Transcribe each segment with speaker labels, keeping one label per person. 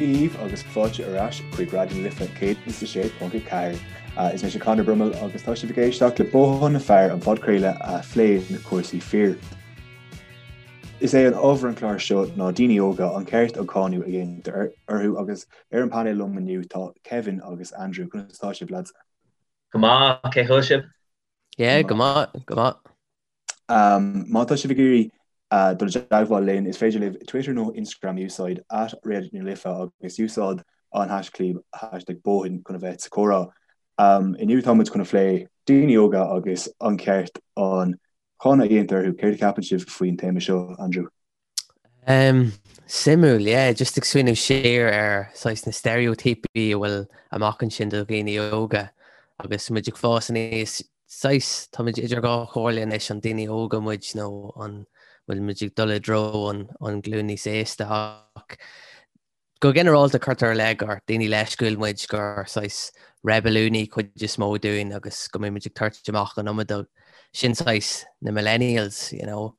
Speaker 1: Dia dhaoibh agus fáilte ar ais chuig Raidió na Life 106.4. Is mise Conor Brummel agus tá sibh ag éisteacht le Bothán na Fear, an podchraoladh a phléann cúrsaí fir. Is é an ábhar an chláir seo ná daoine óga, an ceart an cáineadh a dhéantar orthu agus ar an painéal liom inniu tá Kevin agus Andrew. Conas atá sibh lads?
Speaker 2: Go maith, cén chaoi a bhfuil sibh?
Speaker 3: Yeah, go maith, go maith.
Speaker 1: Má tá sibh ag iarraidh dul i dteagmháil linn, is féidir libh Twitter nó Instagram a úsáid, @Raidió na Life agus úsáid an haischlib #Bóthan chun a bheith sa chomhrá. Inniu tá muid chun a phlé daoine óga agus an ceart an cáineadh a dhéantar orthu. Céard a cheapann sibh faoin téama seo, Andrew?
Speaker 3: Suimiúil, yeah, just ag smaoineamh siar ar saghas na steiréitíopaí a bhfuil amach ansin do dhaoine óga agus muid ag fás aníos, saghas, tá muid idir dhá chomhairle anois, an daoine óga muid nó an bhfuil muid ag dul i dtreo an an glúin níos aosta ach go ginearálta cuirtear i leith gur daoine leisciúil muid, gur saghas reibiliúnaí cuid is mó dúinn agus go mbíonn muid ag tabhairt amach an iomad, sin saghas na millennials, you know.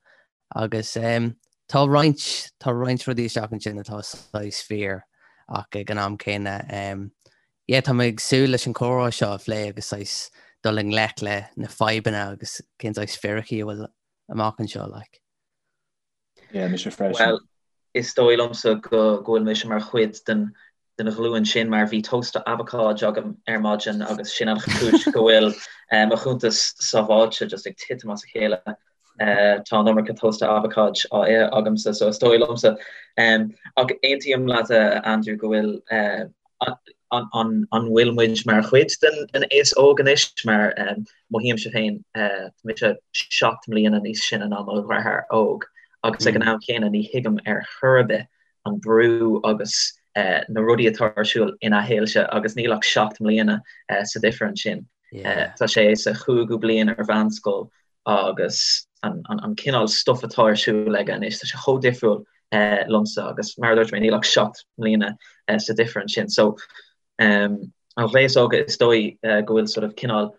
Speaker 3: Agus tá roinnt, tá roinnt rudaí isteach ansin atá saghas fíor ach ag an am céanna, yeah, tá mé ag súil leis an chomhrá seo a phlé agus saghas dul i ngleic le na fadhbanna agus cén saghas fíricí a bhfuil amach anseo, like.
Speaker 1: Yeah, mise freisin.
Speaker 2: Bhuel, is dóigh liomsa go bhfuil mise mar chuid den den ghlúin sin mar bhí tósta abhacáid agam ar maidin agus sin an chúis go bhfuil mo chuntas sábháilte just ag titim as a chéile. Tá an iomarca tósta abhacáid á ithe agamsa so is dóigh liomsa. Ach aontaím leat a Andrew go bhfuil an bhfuil muid mar chuid den aos óg anois mar mothaímse féin tá mise 7 mbliana níos sine ná mo dheartháir óg agus ag an am chéanna ní thuigim ar chor ar bith an brú agus na rudaí atá ar siúl ina shaolse agus níl ach 7 mbliana sa difear ansin. Tá sé sa chúigiú bliain ar mheánscoil agus an cineál stuif atá ar siúl aige anois, tá sé chomh difriúil liomsa agus mar a dúirt mé níl ach 7 mbliana sa difear ansin. So an aos óg is dóigh go bhfuil sort of cineál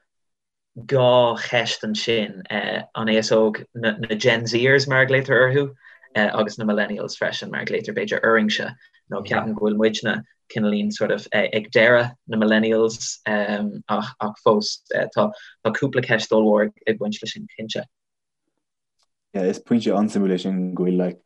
Speaker 2: 2 cheist ansin, an aos óg, na Gen Zers mar a ghlaotar orthu, agus na Millennials freisin mar a ghlaotar b'fhéidir orainse, nó ceapaim go bhfuil muidne cineáilín sort of ag deireadh na Millennials ach ach fós tá cúpla ceist ollmhór ag baint leis sin cinnte.
Speaker 1: Yeah, is pointe an-suimiúil é sin go bhfuil like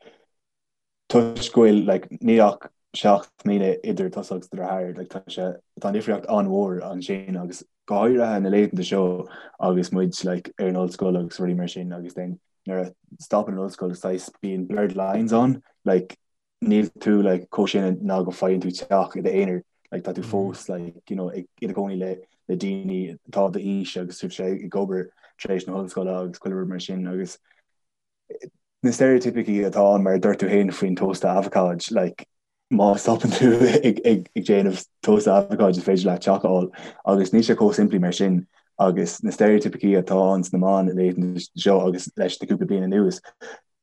Speaker 1: toisc go bhfuil like níl ach 7 mbliana idir tusa agus do dheartháir, like tá sé, tá an difríocht an-mhór ansin agus go háirithe na laethanta seo agus muid like ar an ollscoil agus rudaí mar sin agus then nuair a stopann an ollscoil saghas bíonn blurred lines ann, like níl tú like chomh sine ná go faigheann tú teach i d'aonar, like tá tú fós like you know ag i do chónaí le le daoine atá d'aois agus tú ag obair tar éis na hollscoile agus chuile rud mar sin agus na steiréitíopaí atá ann mar a dúirt tú féin faoin tósta abhacáid, like má stopann tú ag ag ag déanamh tósta abhacáid is féidir leat teach a fháil agus níl sé chomh simplí mar sin agus na steiréitíopaí atá ann sna meáin laethanta seo agus leis na cúpla bliain anuas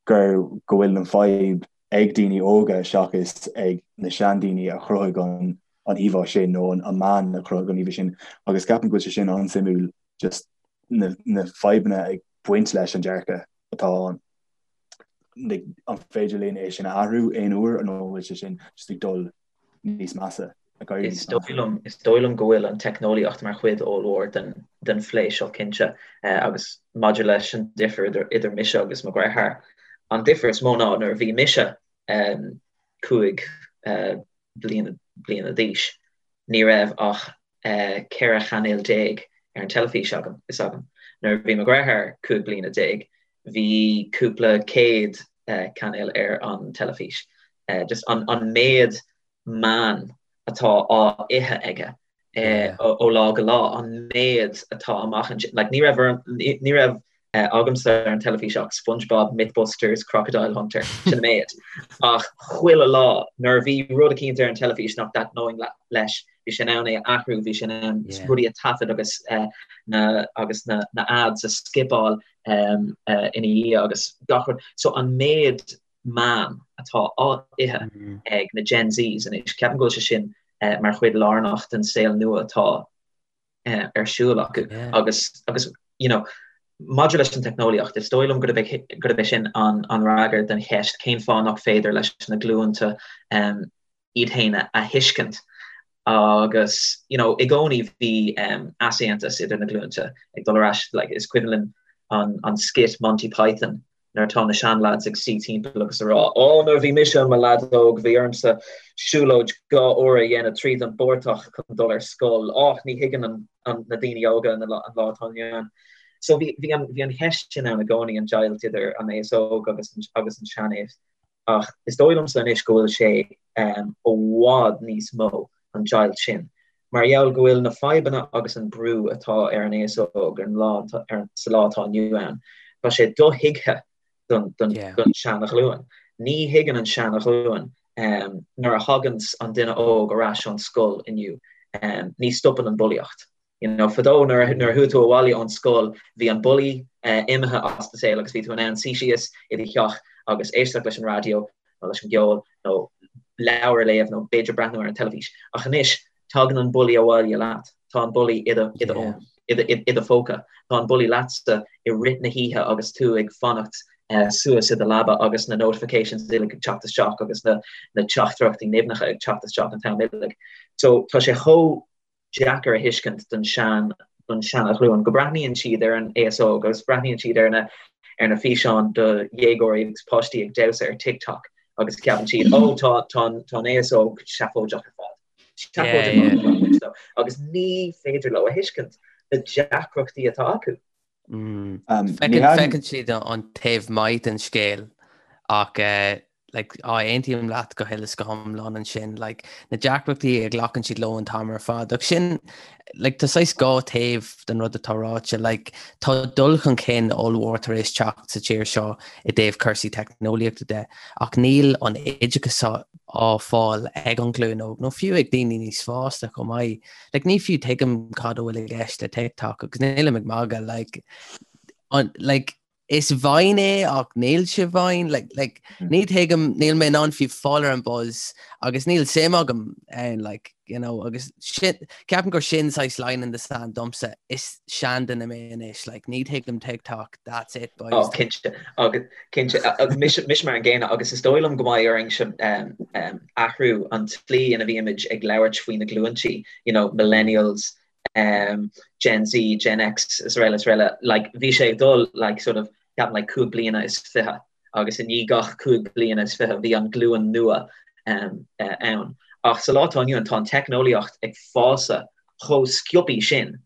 Speaker 1: gur go bhfuil an fadhb ag daoine óga seachas ag na seandaoine a chruthaigh an an íomhá sin nó an an meán a chruthaigh an íomhá sin agus ceapaim go bhfuil sé sin an-suimiúil just na na fadhbanna ag baint leis an dearcadh atá ann. An féidir linn é sin a athrú aon uair nó an bhfuil sé sin just ag dul níos measa,
Speaker 2: ag éirí níos measa? Is dóigh liom go bhfuil an teicneolaíocht mar chuid ollmhór den den phlé seo cinnte agus maidir leis an difear idir idir mise agus mo dheartháir, an difear is mó ná nuair a bhí mise 5 bliana bliana d'aois ní raibh ach 14 chainéal ar an teilifís agam, is agam. Nuair a bhí mo dheartháir 15 bliana, bhí cúpla céad cainéal ar an teilifís. Just an méid meán atá á ithe aige ó lá go lá, an méid atá amach ansin. Like, ní raibh, ní raibh agamsa ar an teilifís ach SpongeBob, Mythbusters, Crocodile Hunter, sin an méid. Ach chuile lá, nuair a bhí rud eicínt ar an teilifís nach dtaitneoinn leis, bhí sé in ann é a athrú, bhí sé in ann rudaí a taifead agus na agus na na ads a skipeáil ina dhiaidh agus gach rud. So an méid meán atá á ithe ag na Gen Zs anois, ceapaim go bhfuil sé sin mar chuid lárnach den saol nua atá ar siúl acu agus agus you know maidir leis an teicneolaíocht, is dóigh liom gurb é gurb é sin an an fhreagra den cheist cén fáth nach féidir leis na glúnta um, iad féin a thuiscint agus you know i gcónaí bhí easaontas idir na glúinte ag dul ar ais like is cuimhin linn an an skit Monty Python nuair atá na seanlads ag suí timpeall agus a rá ó nuair a bhí mise i mo leaid óg bhí ormsa siúlóid 2 uair a dhéanamh tríd an bportach chun dul ar scoil ach ní thuigeann an, an, na daoine óga an, an lá atá inniu ann. So bhí, bhí, an, bhí an cheist sin ann i gcónaí an deighilt idir an aos óg agus an, agus an seanaos. Ach is dóigh liomsa anois go bhfuil sé i bhfad níos mó, an deighilt sin, mar gheall go bhfuil na fadhbanna agus an brú atá ar an aos óg ar an lá, sa lá atá inniu ann, tá sé dothuigthe don seana-ghlúin. Ní thuigeann an seana-ghlúin nuair a thaganns an duine óg ar ais ón scoil inniu, ní stopann an bulaíocht. You know, fadó nuair a chuaigh tú abhaile ón scoil bhí an bullaí imithe as do shaol agus bhí tú in ann suí síos i do theach agus éisteacht leis an raidió nó leis an gceol nó leabhar a léamh nó b'fhéidir breathnú ar an teilifís. Ach anois tagann an bullaí abhaile leat, tá an bullaí i do i do fhón, i do i do phóca, tá an bullaí leatsa i rith na hoíche agus tú ag fanacht suas i do leaba agus na notifications uilig ag teacht isteach agus na na teachtaireachtaí nimhneacha ag teacht isteach an t-am uilig. So tá sé chomh deacair a thuiscint don sean don seana-ghlúin, go breathnaíonn siad ar an aos óg agus breathnaíonn siad ar na ar na físeáin do dhéagóirí agus páistí ag damhsa ar TikTok agus ceapann siad ó tá tá tá an aos óg seafóideach ar fad. Seafóideach ar fad agus ní féidir leo a thuiscint na deacrachtaí atá acu.
Speaker 3: Feiceann siad an taobh maith den scéal ach like, á aontaím leat go huile is go hiomlán ansin, like, na deacrachtaí a ghlacann siad leo an t-am ar fad. Ach sin, like, tá saghas dhá taobh den rud atá ráite, like, tá dul chun cinn ollmhór tar éis teacht sa tír seo i dtaobh cúrsaí teicneolaíochta de, ach níl an oideachas á fáil ag an ghlúin óg, nó fiú ag daoine níos fásta chomh maith. Like, ní fiú tuigim cad a bhfuil i gceist le TikTok agus nílim ag magadh, like, an, like, is Vine é ach níl sé Vine, like, like, mm. ní thuigim, níl mé in ann fiú fáil ar an buzz agus níl suim agam ann, like, you know, agus sin, ceapaim gur sin saghas line in the sand domsa, is seanduine mé anois, like, ní thuigim TikTok, that's it, boys.
Speaker 2: Oh, cinnte, agus cinnte, mise, mise mar an gcéanna agus is dóigh liom go mbeidh orainn um, athrú an tslí ina bhímid ag labhairt faoi na glúintí, you know, millennials, um, Gen Z, Gen X, is araile, is araile, like, bhí sé ag dul, like, sort of, ceapaim, like, 25 bliana agus i ndiaidh gach 25 bliana bhí an glúin nua um, uh, ann. Ach sa lá atá inniu ann tá an teicneolaíocht ag fás chomh sciobtha sin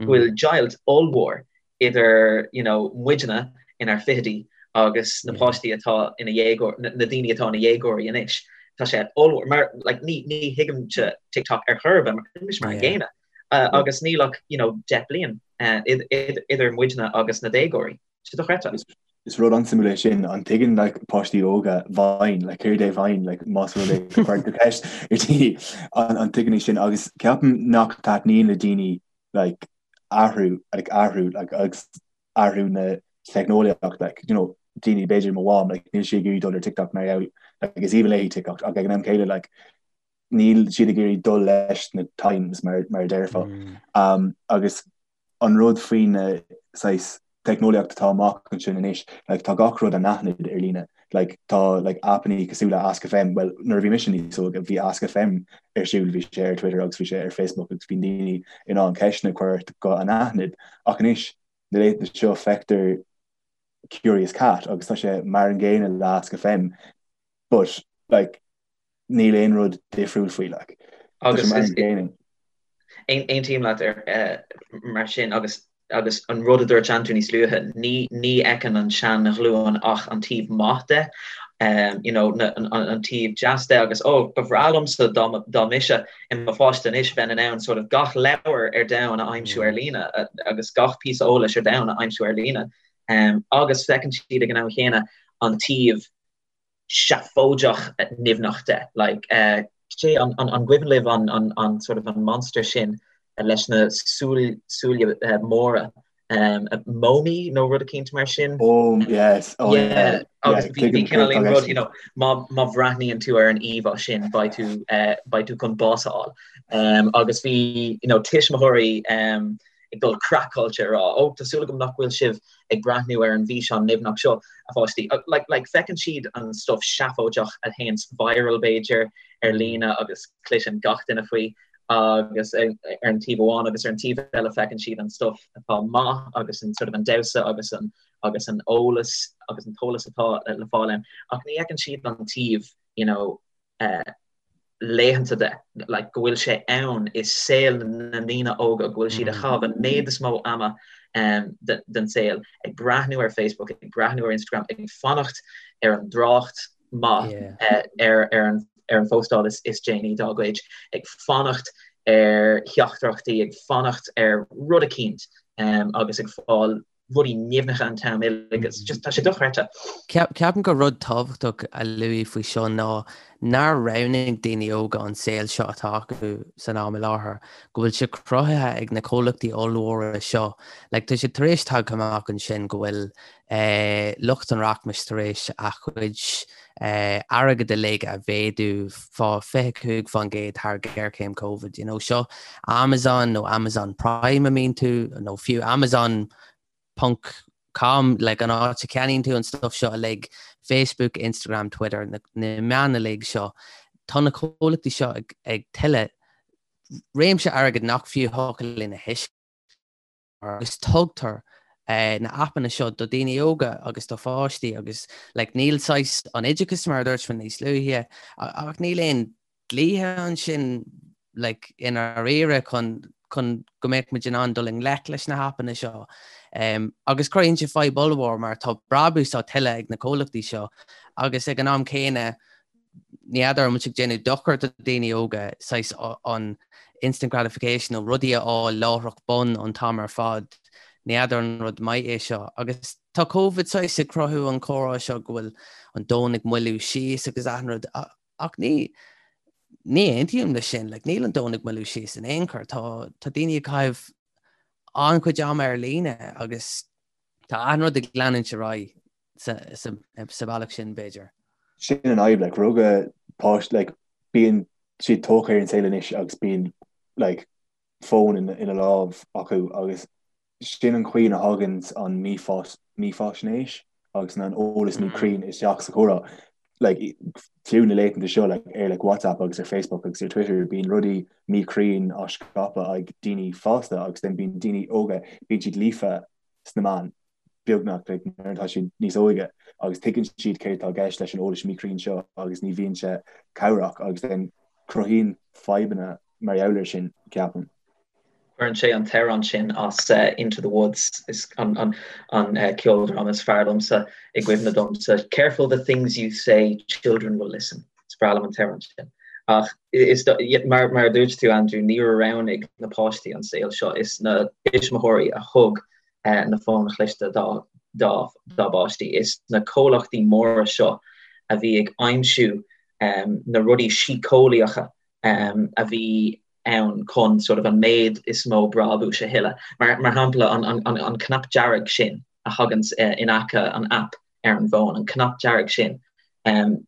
Speaker 2: go bhfuil deighilt ollmhór idir you know muidne inár fichidí agus na páistí atá ina dhéagóir, na daoine atá ina dhéagóirí anois. Tá sé ollmhór mar like ní ní thuigimse TikTok ar chor ar bith mar mise mar an gcéanna agus níl ach you know 10 bliain idir muidne agus na déagóirí. Sé dochreidte.
Speaker 1: Is rud an-suimiúil é sin, an dtuigeann like páistí óga Vine, like céard é Vine, like más rud é go gcuireann tú ceist ar daoine an an dtuigeann siad sin agus ceapaim nach dtaitníonn le daoine like athrú like athrú like agus athrú na teicneolaíocht like you know daoine b'fhéidir mo mham like níl sí ag iarraidh dul ar TikTok mar gheall like is aoibhinn léi TikTok ach ag an am céanna like níl siad ag iarraidh dul leis na times mar mar a déarfá um, agus an rud faoi na saghas teicneolaíocht atá amach ansin anois, like tá gach rud anaithnid ar líne, like tá like aipeanna cosúil le Ask FM, bhuel nuair a bhí mise níos óige bhí Ask FM ar siúl, bhí sé ar Twitter agus bhí sé ar Facebook agus bhí daoine in ann ceisteanna a chur ort go anaithnid ach anois na laethanta seo feictear Curious Cat agus tá sé mar an gcéanna le Ask FM but like níl aon rud difriúil faoi like. Tá sé mar an gcéanna.
Speaker 2: Aontaím leat ar mar sin agus agus an rud a dúirt Andrew níos luaithe, ní ní fheiceann an sean-ghlúin ach an taobh maith de, you know, na, an, an taobh deas de agus oh, ba bhreá liomsa dá, dá mise i mo pháiste anois bheinn in ann sort of gach leabhar ar domhan a aimsiú ar líne agus gach píosa eolais ar domhan a aimsiú ar líne. Um, agus feiceann siad ag an am chéanna an taobh seafóideach nimhneach de. Like, cé, an, an, an gcuimhin libh an, an, an sort of an monster sin leis na súil, súile móra, um, Momi nó rud eicínt mar sin?
Speaker 1: Oh, yes, oh, yeah.
Speaker 2: Yeah, agus bhí, bhí cineál aon rud, you know, má, má bhreathnaíonn tú ar an íomhá sin, beidh tú, uh, beidh tú chun bás a fháil. Um, agus bhí, you know, tuismitheoirí, um, ag dul craiceáilte ag rá, 'Ó, tá súil agam nach bhfuil sibh ag breathnú ar an bhfíseán nimhneach seo, a pháistí. Like, like, feiceann siad an stuff seafóideach a théanns viral, b'fhéidir, ar líne agus cloiseann gach duine faoi agus ar an taobh amháin agus ar an taobh eile feiceann siad an stuff atá maith agus an sort of an damhsa agus an agus an eolas agus an t-eolas atá le fáil ann ach ní fheiceann siad an taobh you know, uh, laethanta de, like, go bhfuil sé ann i saol na ndaoine óga, go bhfuil siad ag caitheamh an méid is mó ama um, den saol ag breathnú ar Facebook, ag breathnú ar Instagram, ag fanacht ar an dtrácht maith yeah. uh, ar, ar, an, ar an phóstáil is, is déanaí dá gcuid, ag fanacht ar theachtaireachtaí, ag fanacht ar rud eicínt um, agus ag fáil rudaí nimhneacha an t-am uilig agus just tá sé dochreidte.
Speaker 3: Ceapaim gur rud tábhachtach a lua faoi seo ná nár roghnaigh daoine óga an saol seo atá acu san am i láthair, go bhfuil sé cruthaithe ag na comhlachtaí ollmhóra seo. Like, tá sé tar éis tagtha amach ansin go bhfuil lucht an rachmais tar éis a chuid airgead uilig a mhéadú fá 25% thar géarchéim Covid. You know, seo Amazon nó Amazon Prime a mbíonn tú, nó fiú Amazon ponc com, like an áit a ceannaíonn tú an stuff seo uilig, Facebook, Instagram, Twitter, na, na meáin uilig seo. Tá na comhlachtaí seo ag, ag tuilleadh réimse airgid nach fiú thiocfadh linn a thuiscint. agus tugtar na aipeanna seo do daoine óga agus do pháistí agus like níl saghas an oideachas mar a dúirt mé níos luaithe ach níl aon dlíthe ansin like i ndáiríre chun chun go mbeadh muid in ann dul i ngleic leis na haipeanna seo. Um, agus cruthaíonn sé fadhb ollmhór mar tá brabús á tuilleadh ag na comhlachtaí seo agus ag an am céanna ní fheadar an bhfuil sé ag déanamh dochar do daoine óga, saghas an instant gratification nó rudaí a fháil láithreach bonn an t-am ar fad, ní fheadar an rud maith é seo. Agus tá Covid saghas ag cruthú an comhrá seo go bhfuil an domhan ag moilliú síos agus achan rud ach ní ní aontaím leis sin, like níl an domhan ag moilliú síos in aon chor, tá tá daoine ag caitheamh an-chuid ama ar líne agus tá achan rud ag leanúint ar aghaidh. sa bhealach sin, b'fhéidir.
Speaker 1: Sin an fhadhb, like, rugadh páiste, like, bíonn siad tógtha ar an saol anois agus bíonn, like, fón ina lámh acu agus sin an chaoi ina thagann an mífhaisnéis agus an eolas míchruinn isteach sa chomhrá. Like, fiú na laethanta seo, like, ar like, WhatsApp agus ar Facebook agus ar Twitter, bíonn rudaí míchruinn á scaipeadh ag daoine fásta agus then bíonn daoine óga, bíonn siad líofa sna meáin. beagnach like nuair atá siad níos óige agus tuigeann siad céard atá i gceist leis an eolas míchruinn seo agus ní bhíonn sé cabhrach agus then cruthaíonn fadhbanna mar gheall air sin, ceapaim.
Speaker 2: Cuireann sé an t-amhrán sin as Into the Woods, is an an an ceoldráma is fearr liomsa i gcuimhne domsa. Careful the things you say, children will listen. Is breá liom an t-amhrán sin. Ach is mar mar a dúirt tú Andrew, níor roghnaigh na páistí an saol seo, is na tuismitheoirí a thug na fóin chliste dá bpáistí. Is na comhlachtaí móra seo a bhí ag aimsiú na rudaí síceolaíocha a bhí ann chun sort of an méid is mó brabúis a thuilleadh. Mar shampla, an cnap dearg sin a thaganns in aice an app ar an bhfón, an cnap dearg sin,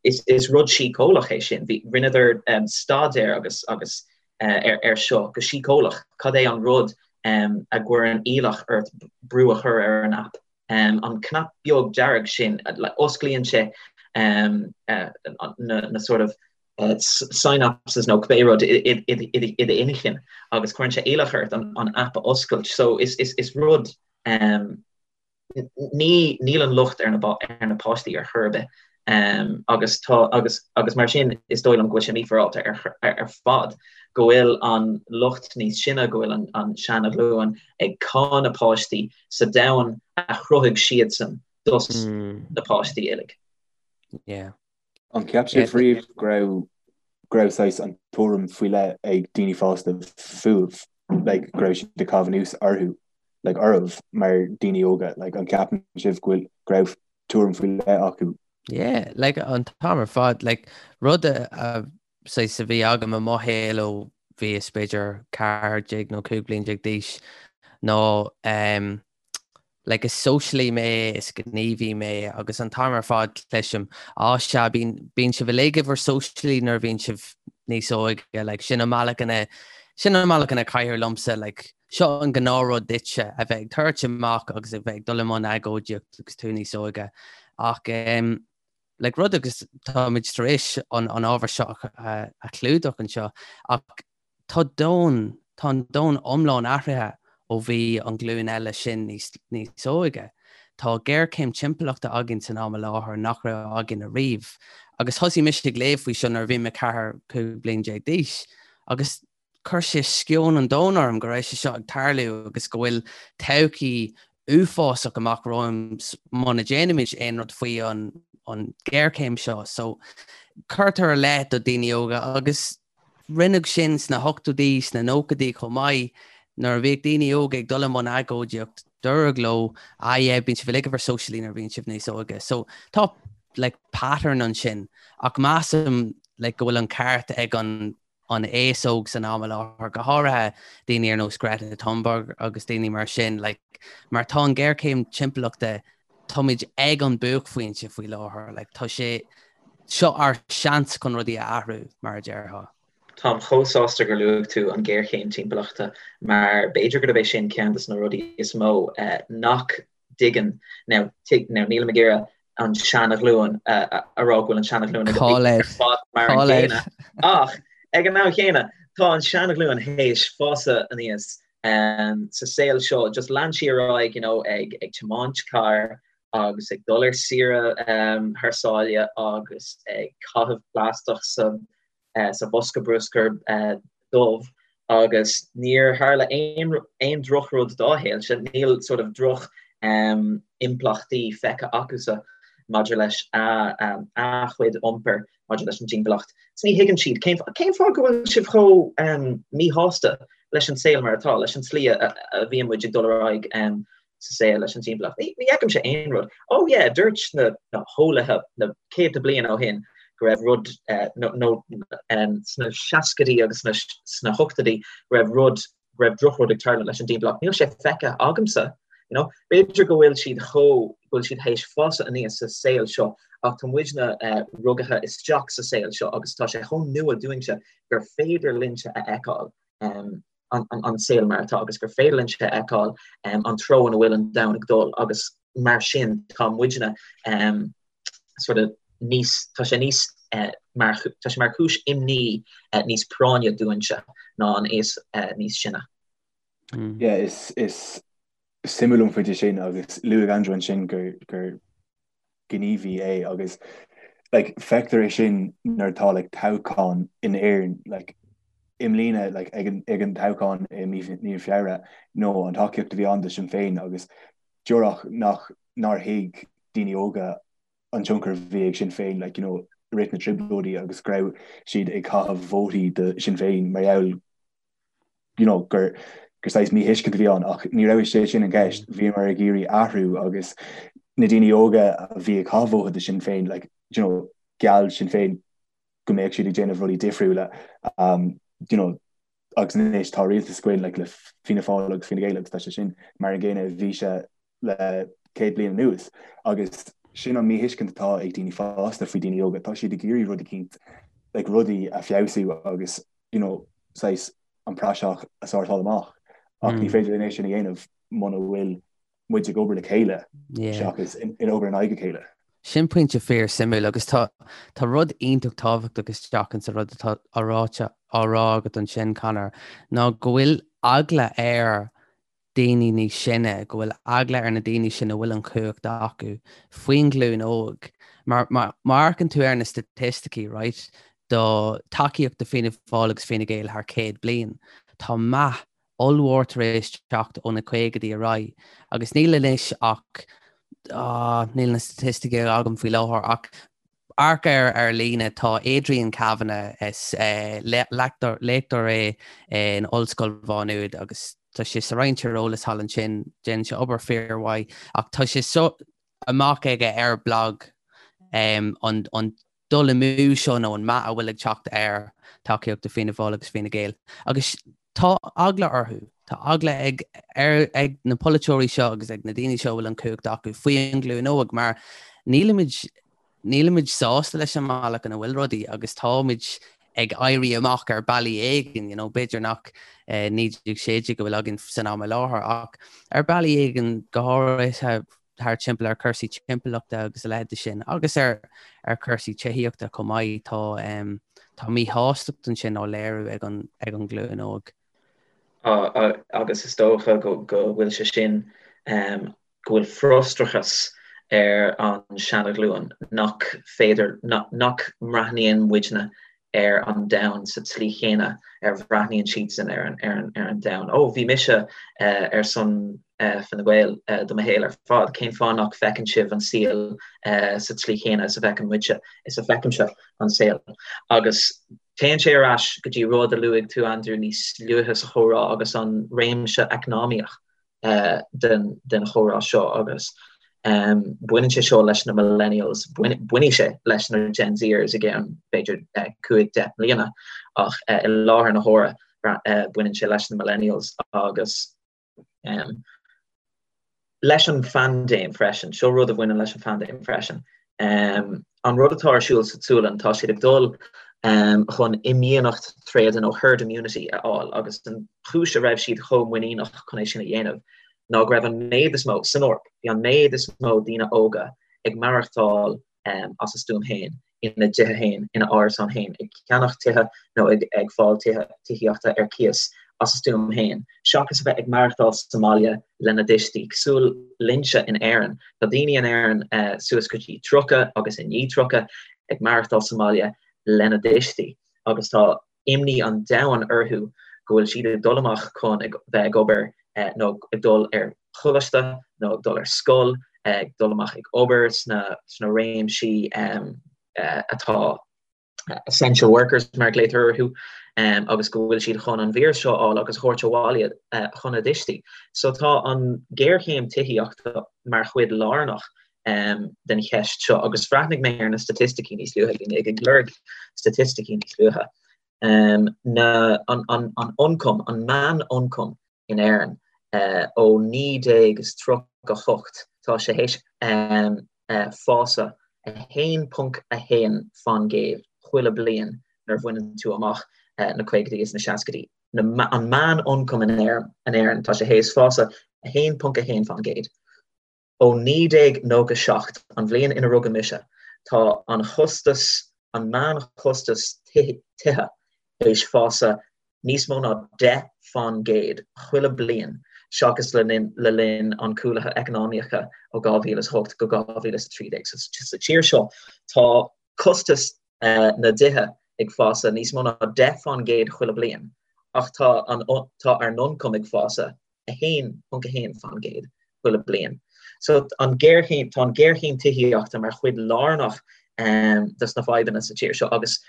Speaker 2: is rud síceolaíoch é sin. Rinneadar staidéar agus agus ar seo go síceolaíoch, cad é an rud a gcuireann iallach ort brú a chur ar an app? An cnap beag dearg sin, osclaíonn sé na sort of synapses nó cibé rud i d'inchinn agus cuireann sé iallach ort an app a oscailt. So is rud Ní, níl an locht ar na, ar na páistí ar chor ar bith agus tá, agus, agus mar sin is dóigh liom go bhfuil sé mífhéaráilte ar, ar fad go bhfuil an lucht níos sine, go bhfuil an, an seana-ghlúin ag cáineadh páistí sa domhan a chruthaigh siadsan dos na páistí uilig.
Speaker 3: Yeah.
Speaker 1: An cheap sibh riamh go raibh, go raibh saghas an tuairim faoi leith ag daoine fásta fúibh, like go raibh siad ag caitheamh anuas orthu, like oraibh mar daoine óga, like an ceapann sibh go bhfuil, go raibh tuairim faoi leith acu?
Speaker 3: Yeah, like an t-am ar fad, like rud a, a saghas a bhí agam i mo shaol ó bhíos b'fhéidir 14 nó 15 bliain d'aois ná um, like is sóisialaí mé, is gníomhaí mé agus an t-am ar fad cloisim, á sea, bíonn, bíonn sibh uilig i bhur sóisialaí nuair a bhíonn sibh níos óige, like sin an bealach ina, sin an bealach ina caithfear liomsa, like. Seo an gnáthrud duitse, a bheith ag tabhairt amach agus a bheith ag dul i mbun agóidíocht agus tú níos óige. Ach um, like, rud agus táimid tar éis an, an ábhar seo a, a chlúdach anseo, ach tá domhan, tá an domhan iomlán athraithe ó bhí an ghlúin eile sin níos, níos óige. Tá géarchéim timpeallachta againn san am i láthair nach raibh againn ariamh. Agus thosaigh mise ag léamh faoi seo nuair a bhí mé 14, 15 bliain d'aois. Agus chuir sé sceon an domhain orm go raibh sé seo ag tarlú agus go bhfuil todhchaí uafásach amach romhainn muna déanaimid aon rud faoi an an ghéarchéim seo. So cuirtear i leith do daoine óga agus rinneadh sin sna hochtóidí, sna nóchaidí chomh maith, nuair a bhíodh daoine óga ag dul i mbun agóidíocht, dúradh leo, ah yeah, bíonn sibh uilig i bhur sóisialaigh nuair a bhíonn sibh níos óige. So tá like pattern ansin ach measaim like go bhfuil an ceart ag an an aos óg san am i láthair, go háirithe daoine ar nós Greta Thunberg agus daoine mar sin, like, mar tá an géarchéim timpeallachta, táimid ag an buaicphointe faoi láthair, like, tá sé, seo ár seans chun rudaí a athrú, mar a déarfá.
Speaker 2: Táim chomh sásta gur luaigh tú an ghéarchéim timpeallachta mar b'fhéidir gurb é sin ceann de na rudaí is mó nach dtuigeann, now, now nílim ag iarraidh an seana-ghlúin a rá go bhfuil an seana-ghlúin ag ar fad mar an gcéanna ach ag an am chéanna tá an seana-ghlúin théis fásadh aníos sa saol seo just lean sí ar aghaidh you know ag ag tiomáint carr agus ag dul ar saoire thar sáile agus ag caitheamh plaisteach sa sa bhosca bruscair dubh agus níor tharla aon aon drochrud dá shaolsa, níl sort of droch impleachtaí feicthe acusa maidir leis a a chuid iompair maidir leis an dtimpeallacht. So ní thuigeann siad cén cén fáth go bhfuil sibh chomh míshásta leis an saol mar atá, leis an tslí a a bhíonn muid ag dul ar aghaidh sa saol leis an timpeallacht. Ní fheicimse aon rud. Oh yeah, dúirt na na heolaithe na céadta bliain ó shin go raibh rud nó sna seascaidí agus sna sna hochtóidí go raibh rud go raibh drochrud ag tarlú leis an dtimpeallacht. Níl sé feicthe agamsa. You know? B'fhéidir go bhfuil siad chomh go bhfuil siad théis fásadh aníos sa saol seo ach tá muidne rugaithe isteach sa saol seo agus tá sé chomh nua dúinnse gur féidir linnse a fheiceáil an saol mar atá agus gur féidir linnse a fheiceáil an treo ina bhfuil an domhan ag dul agus mar sin tá muidne sort of níos tá sé níos mar tá sé mar chúis imní níos práinne dúinnse ná an aos níos sine.
Speaker 1: Yeah, is is suimiúil an pointe sin agus luaigh Andrew ansin gur gur gníomhaí é agus like feictear é sin nuair atá like toghchán in Éirinn like i mbliana like ag an ag an toghchán i mí mí Feabhra nó an tacaíocht a bhí ann do Sinn Féin agus díreach nach nár thuig daoine óga an tionchar a bhí ag Sinn Féin like you know i rith na trioblóidí agus go raibh siad ag caitheamh vótaí do Sinn Féin mar gheall you know, gur gur saghas míthuiscint a bhí ann ach ní raibh sé sin an gceist, bhíomar ag iarraidh athrú agus na daoine óga a bhí ag caitheamh vóta do Sinn Féin like, you know, gheall Sinn Féin go mbeadh siad ag déanamh rudaí difriúla um, you know, agus anois tá rialtas againn like, le Fianna Fáil agus Fine Gael agus tá sé sin mar an gcéanna a bhí sé le 100 bliain anuas agus sin an míthuiscint atá ag daoine fásta faoi daoine óga, tá siad ag iarraidh rud eicínt like, rudaí a feabhsú agus you know, saghas an praiseach a sórtáil amach ach ní féidir linn é sin a dhéanamh muna bhfuil muid ag obair le chéile seachas in obair in aghaidh a chéile.
Speaker 3: Sin pointe fíor suimiúil agus tá tá rud iontach tábhachtach isteach insa rud atá á ráite á rá agat ansin Conor ná go bhfuil eagla ar daoine níos sine, go bhfuil eagla ar na daoine sin a bhfuil an chumhacht acu faoin ghlúin óg. Mar má amharcann tú ar na staitisticí, right, do tacaíocht do Fianna Fáil agus Fine Gael thar 100 bliain, tá meath ollmhór tar éis teacht ó na caogaidí ar aghaidh agus níl anois ach, ah, níl na staitisticí agam faoi láthair ach Amharc air ar líne, tá Adrian Kavanagh, is léachtóir é in Ollscoil Mhá Nuad agus tá sé sa Roinn Tíreolais thall ansin, déanann sé obair fíormhaith ach tá sé seo amach aige ar blag an dul amú seo nó an meath a bhfuil ag teacht ar tacaíocht do Fianna Fáil agus Fine Gael agus Tá eagla orthu. Tá eagla ag ar ag na polaiteoirí seo agus ag na daoine seo a bhfuil an chumhacht acu faoi an ghlúin óg mar nílimid nílimid sásta leis an mbealach ina bhfuil rudaí agus táimid ag éirí amach ar bealaí éigin, you know, b'fhéidir nach 1916 a bhfuil againn san am i láthair ach ar bealaí éigin go háirithe thar timpeall ar cúrsaí timpeallachta agus a leithéid de sin agus ar ar cúrsaí tithíochta chomh maith tá um, tá míshástacht ansin á léiriú ag an ag an ghlúin óg.
Speaker 2: Agus is dócha go go bhfuil sé sin um, go bhfuil frustrachas ar an seanaghlúin nach féidir, nach mbreathnaíonn muidne ar an domhan sa tslí chéanna ar bhreathnaíonn siadsan ar an domhan. Ó, bhí mise ar son Fine Gael do mo shaol ar fad, cén fáth nach bhfeiceann sibh an saol sa tslí chéanna is a bhfeiceann muidse, is a bhfeicimse an saol? Agus téann sé ar ais go dtí rud a luaigh tú, Andrew, níos luaithe sa chomhrá agus an réimse eacnamaíoch. den chomhrá seo agus baineann sé seo leis na millennials, bainfidh sé leis na Gen Zers i gceann b'fhéidir 5, 10 mbliana ach i láthair na huaire baineann sé leis na millennials agus leis an phaindéim freisin. Seo rud a bhaineann leis an phaindéim freisin. An rud atá ar siúl sa tSualainn, tá siad ag dul chun imdhíonacht tréada nó herd immunity a fháil agus an chúis a raibh siad chomh muiníneach chun é sin a dhéanamh ná go raibh an méid is mó, san Eoraip, bhí an méid is mó daoine óga ag maireachtáil as a stuaim féin, ina dtithe féin, ina n-árasáin féin, ag ceannach tithe nó ag fáil tithe, tithíochta ar cíos as a stuaim féin, seachas a bheith ag maireachtáil sa mbaile lena dtuistí. Cosúil linnse in Éirinn, tá daoine in Éirinn suas go dtí 30 agus i ndiaidh 30 ag maireachtáil sa mbaile lena dtuistí agus tá imní an domhain orthu go bhfuil siad ag dul amach chun bheith ag obair nó ag dul ar choláiste nó ag dul ar scoil, ag dul amach ag obair sna réimsí atá essential workers mar a ghlaotar orthu, agus go bhfuil siad chun an víreas seo a fháil agus a thabhairt abhaile chun a dtuistí. So tá an ghéarchéim tithíochta mar chuid lárnach den cheist seo agus bhreathnaigh mé ar na staitisticí níos luaithe, bhí mé ag lorg staitisticí níos luaithe. Na, an, an, an ioncam, an meán-ioncam in Éirinn ó 1938, tá sé théis fás 1.1 fan gcéad chuile bliain nuair a bhaineann tú amach na caogaidí is na seascaidí. Na, an meán-ioncam in Éirinn, tá sé théis fás 1.1 fan gcéad. Ó 1997, an bhliain ina rugadh mise, tá an chostas, an meánchostas tithe, théis fás níos mó ná 10 fan gcéad chuile bliain seachas le le linn an cúlaithe eacnamaíocha ó 2008 go 2013. So sa tír seo tá costas na dtithe ag fás níos mó ná 10 fan gcéad chuile bliain ach tá an tá ár n-ioncam ag fás 1.1 fan gcéad chuile bliain. So an géarchéim, tá an géarchéim tithíochta mar chuid lárnach dos na fadhbanna sa tír seo agus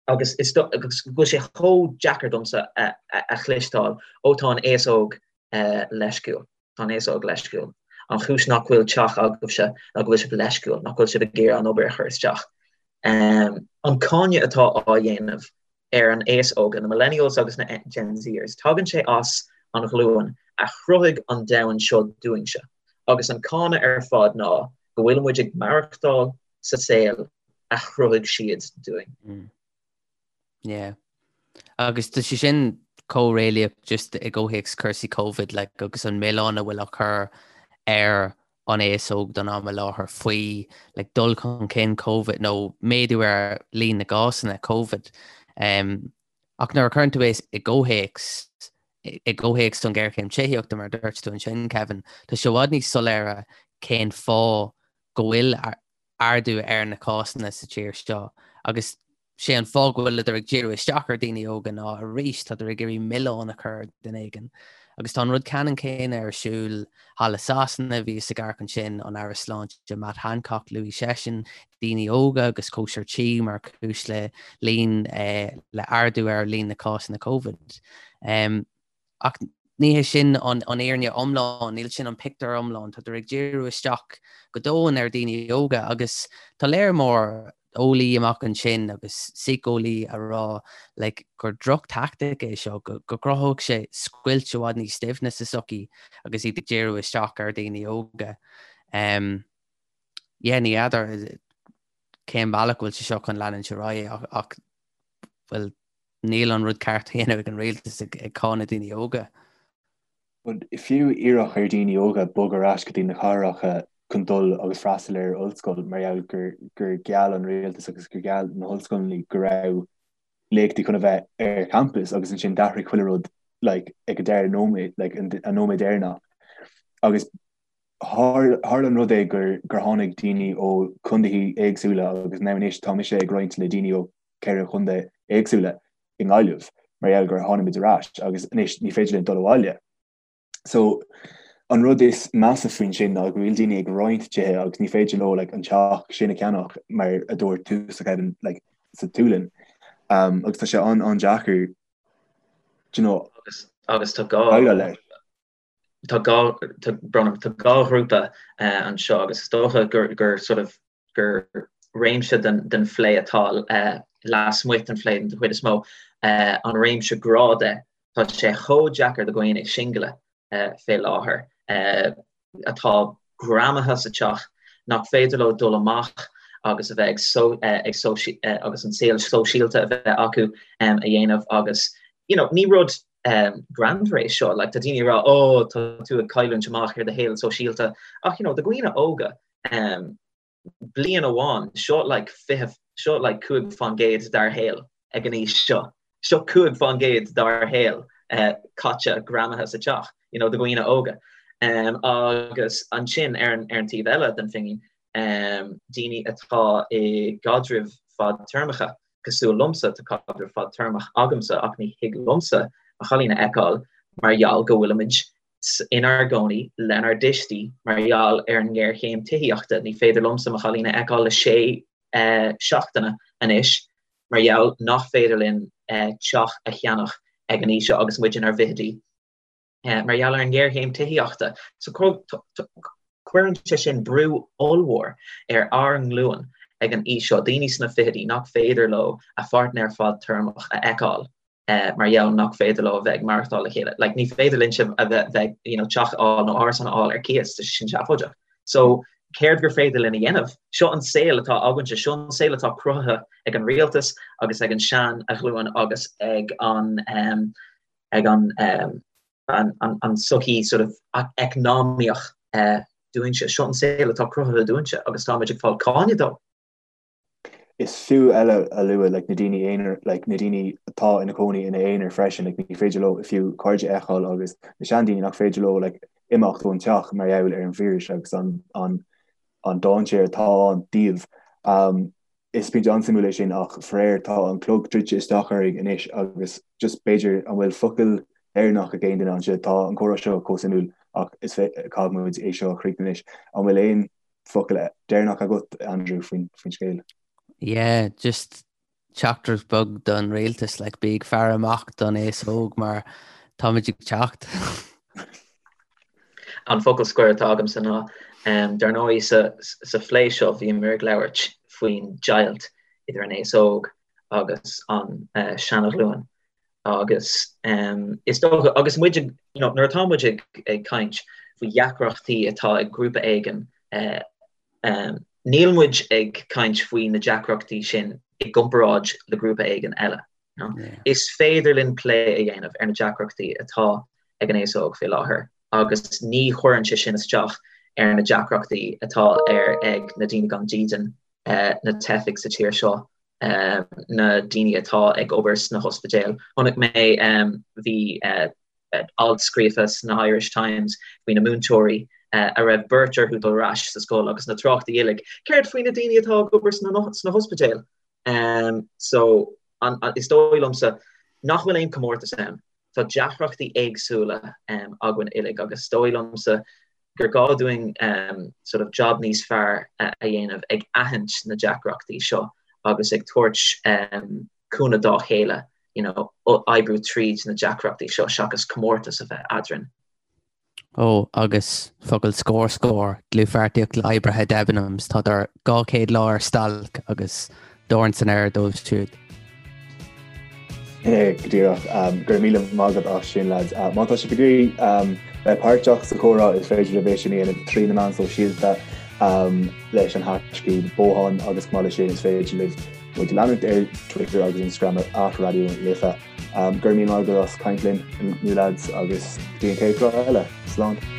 Speaker 2: agus is agus go bhfuil sé chomh deacair domsa a a chloisteáil ó tá an aos óg leisciúil, tá an aos óg leisciúil. An chúis nach bhfuil teach agaibhse ná go bhfuil sibh leisciúil, nach bhfuil sibh ag iarraidh an obair a chur isteach. An cáineadh atá á dhéanamh ar an aos óga, na millennials agus na Gen Zers, tagann sé as an ghlúin a chruthaigh an domhan seo dúinnse, agus an cáineadh ar fad ná go bhfuil muid ag maireachtáil sa saol a chruthaigh siad dúinn.
Speaker 3: Yeah. Agus tá sé sin chomh réalaíoch just i gcomhthéacs cúrsaí Covid like, agus an milleán a bhfuil á chur ar an aos óg don am i láthair faoi like, dul chun cinn Covid nó méadú ar líon na gcásanna Covid. Um, ach nuair a chuireann tú é i gcomhthéacs i gcomhthéacs an ghéarchéim tithíochta mar a dúirt tú ansin Kevin, tá sé i bhfad níos soiléire cén fáth go bhfuil ardú ar na cásanna sa tír seo agus sé an fáth go bhfuileadar ag díriú isteach ar daoine óga ná arís tádar ag iarraidh milleán a chur ar duine éigin. Agus tá an rud ceannann céanna ar siúl thall i Sasana, bhíos ag amharc ansin an Aire Sláinte Matt Hancock, luaigh seisean daoine óga agus cóisir tí mar chúis le líon le ardú ar líon na cásanna Covid. Ach ní hé sin an fhírinne iomlán, níl sin an pictiúr iomlán. Tádar ag díriú isteach go domhain ar dhaoine óga agus tá léar mór eolaí amach ansin agus síceolaí a rá like, gur droch-tactic é seo, go gcruthódh sé scoilt i bhfad níos doimhne sa tsochaí agus iad ag díriú isteach ar dhaoine óga. Um, yeah, ní fheadar cén bealach go bhfuil sé seo chun leanúint ar aghaidh ach, ach. Bhuel, níl an rud ceart á dhéanamh ag an rialtas ag cáineadh daoine óga.
Speaker 1: But fiú iarraidh ar daoine óga bogadh ar ais go dtí na cathracha chun dul agus freastal ar ollscoil mar gheall gur gur gheall an rialtas agus gur gheall na hollscoileanna go raibh léachtaí chun a bheith ar campus agus ansin d'athraigh chuile rud like ag an deireadh nóiméad like an nóiméad deireanach agus tharla an rud é gur gur tháinig daoine ó chontaetha éagsúla agus now anois tá mise ag roinnt le daoine ó 4 chontae éagsúla i nGaillimh mar gheall gur tháinig muid ar ais agus anois ní féidir linn dul abhaile. So an rud is measa faoin sin ná go bhfuil daoine ag roinnt tithe agus ní féidir leo like, an teach sin a cheannach mar a dúirt tusa Kevin like, sa tSualainn. Um, agus tá sé an an-deacair
Speaker 2: you know, agus, agus tá gá leis. Tá gá tá tá gá ghrúpa uh, anseo agus is dócha gur, gur sort of gur réimse den phlé atá lasmuigh den phlé den chuid is mó, an réimse grá de. Tá sé chomh deacair do dhaoine singile fé láthair atá greamaithe sa teach nach féidir leo dul amach agus a bheith ag agus an saol sóisialta a bheith acu a dhéanamh agus you know ní rud greannmhar é seo like tá daoine ag rá oh tá tú ag cailliúint amach ar do shaol sóisialta ach you know do dhaoine óga bliain amháin, seo like 20, seo like 5% dár shaol ag an aois seo. Seo 5% dár shaol caite greamaithe sa teach, you know, do dhaoine óga. Agus ansin ar an, ar an taobh eile den phingin, daoine atá i gcaidrimh fadtéarmacha, cosúil liomsa, tá caidreamh fadtéarmach agamsa ach ní thig liomsa mo chailín a fheiceáil mar gheall go bhfuilimid inár gcónaí lenár dtuistí mar gheall ar an ngéarchéim tithíochta. Ní féidir liomsa mo chailín a fheiceáil le sé seachtaine anois mar gheall nach féidir linn teach a cheannach ag an aois seo agus muid inár bhfichidí mar gheall ar an ngéarchéim tithíochta. So cuireann sé sin brú ollmhór ar ár nglúin ag an aois seo, daoine sna fichidí nach féidir leo a pháirtnéir fadtéarmach a fheiceáil. mar gheall nach féidir leo a bheith ag maireachtáil le chéile. Like, ní féidir linnse a bheith, bheith, you know, teach a fháil nó árasán a fháil ar cíos, tá sé sin seafóideach. So, céard gur féidir linn a dhéanamh? Seo an saol atá againnse, seo an saol atá cruthaithe ag an rialtas agus ag an sean-ghlúin agus ag an, um, ag an, um, an, an, an sochaí sort of eacnamaíoch uh, dúinnse. Seo an saol atá cruthaithe dúinnse agus táimid ag fáil cáineadh dó.
Speaker 1: Is fiú eile a lua like na daoine aonair like na daoine atá ina cónaí ina aonar freisin like ní féidir leo fiú cairde a fheiceáil agus na seandaoine nach féidir leo like imeacht ón teach mar gheall ar an víreas agus an an an dainséar atá ann díobh. Um, is pointe an-suimiúil é sin ach faraor tá an clog druidte isteach orainn anois agus just b'fhéidir an bhfuil focal deireanach ag aon duine anseo tá an comhrá seo chomh suimiúil ach is caithfidh muid é seo a chríochnú anois. An bhfuil aon focal deireanach agat, Andrew, faoin scéal?
Speaker 3: Yeah, just teachtaireacht beag don rialtas, like, bí ag faire amach don aos óg mar táimid ag teacht.
Speaker 2: An focal scoir atá agamsa ná, dar ndóigh sa, sa phlé seo bhíomar ag labhairt faoin deighilt idir an aos óg agus an seana-ghlúin agus is dócha, agus muid ag, you know, nuair atá muid ag, ag caint faoi dheacrachtaí atá ag grúpa éigin, níl muid ag caint faoi na deacrachtaí sin i gcomparáid le grúpa éigin eile. You know? Yeah. Is féidir linn plé a dhéanamh ar na deacrachtaí atá ag an aos óg fé láthair agus ní chuireann sé sin isteach ar na deacrachtaí atá ar ag na daoine gan dídean, na teifigh sa tír seo, na daoine atá ag obair sna hospidéil. Chonaic mé bhí alt scríofa sna Irish Times faoi na múinteoirí a raibh beirt orthu dul ar ais sa scoil agus na tráchtaí uilig, céard faoi na daoine atá ag obair sna hospidéil? So is dóigh liomsa nach bhfuil aon comórtas ann. Tá deacrachtaí éagsúla againn uilig agus is dóigh liomsa gur gá dúinn sort of job níos fearr a dhéanamh ag aithint na deacrachtaí seo agus ag tabhairt cúnamh dá chéile, you know, oibriú tríd na deacrachtaí seo seachas comórtas a bheith eadrainn.
Speaker 3: Ó, agus focal scoir scór, dlúthpháirtíocht le oibrithe Debenhams, tádar 200 lá ar stailc agus dorn san aer dóibh siúd.
Speaker 1: Go díreach. Go raibh míle maith agat as sin, lads. Má tá sibh ag iarraidh bheith páirteach sa chomhrá, is féidir libh é sin a dhéanamh trí na meáin sóisialta leis an haiscíb Bothán agus chomh maith leis sin is féidir libh. Muid a leanúint ar Twitter agus Instagram ar @Raidió na Life. Go raibh míle maith agat as caint linn inniu lads agus go dtí an chéad chlár eile. Slán.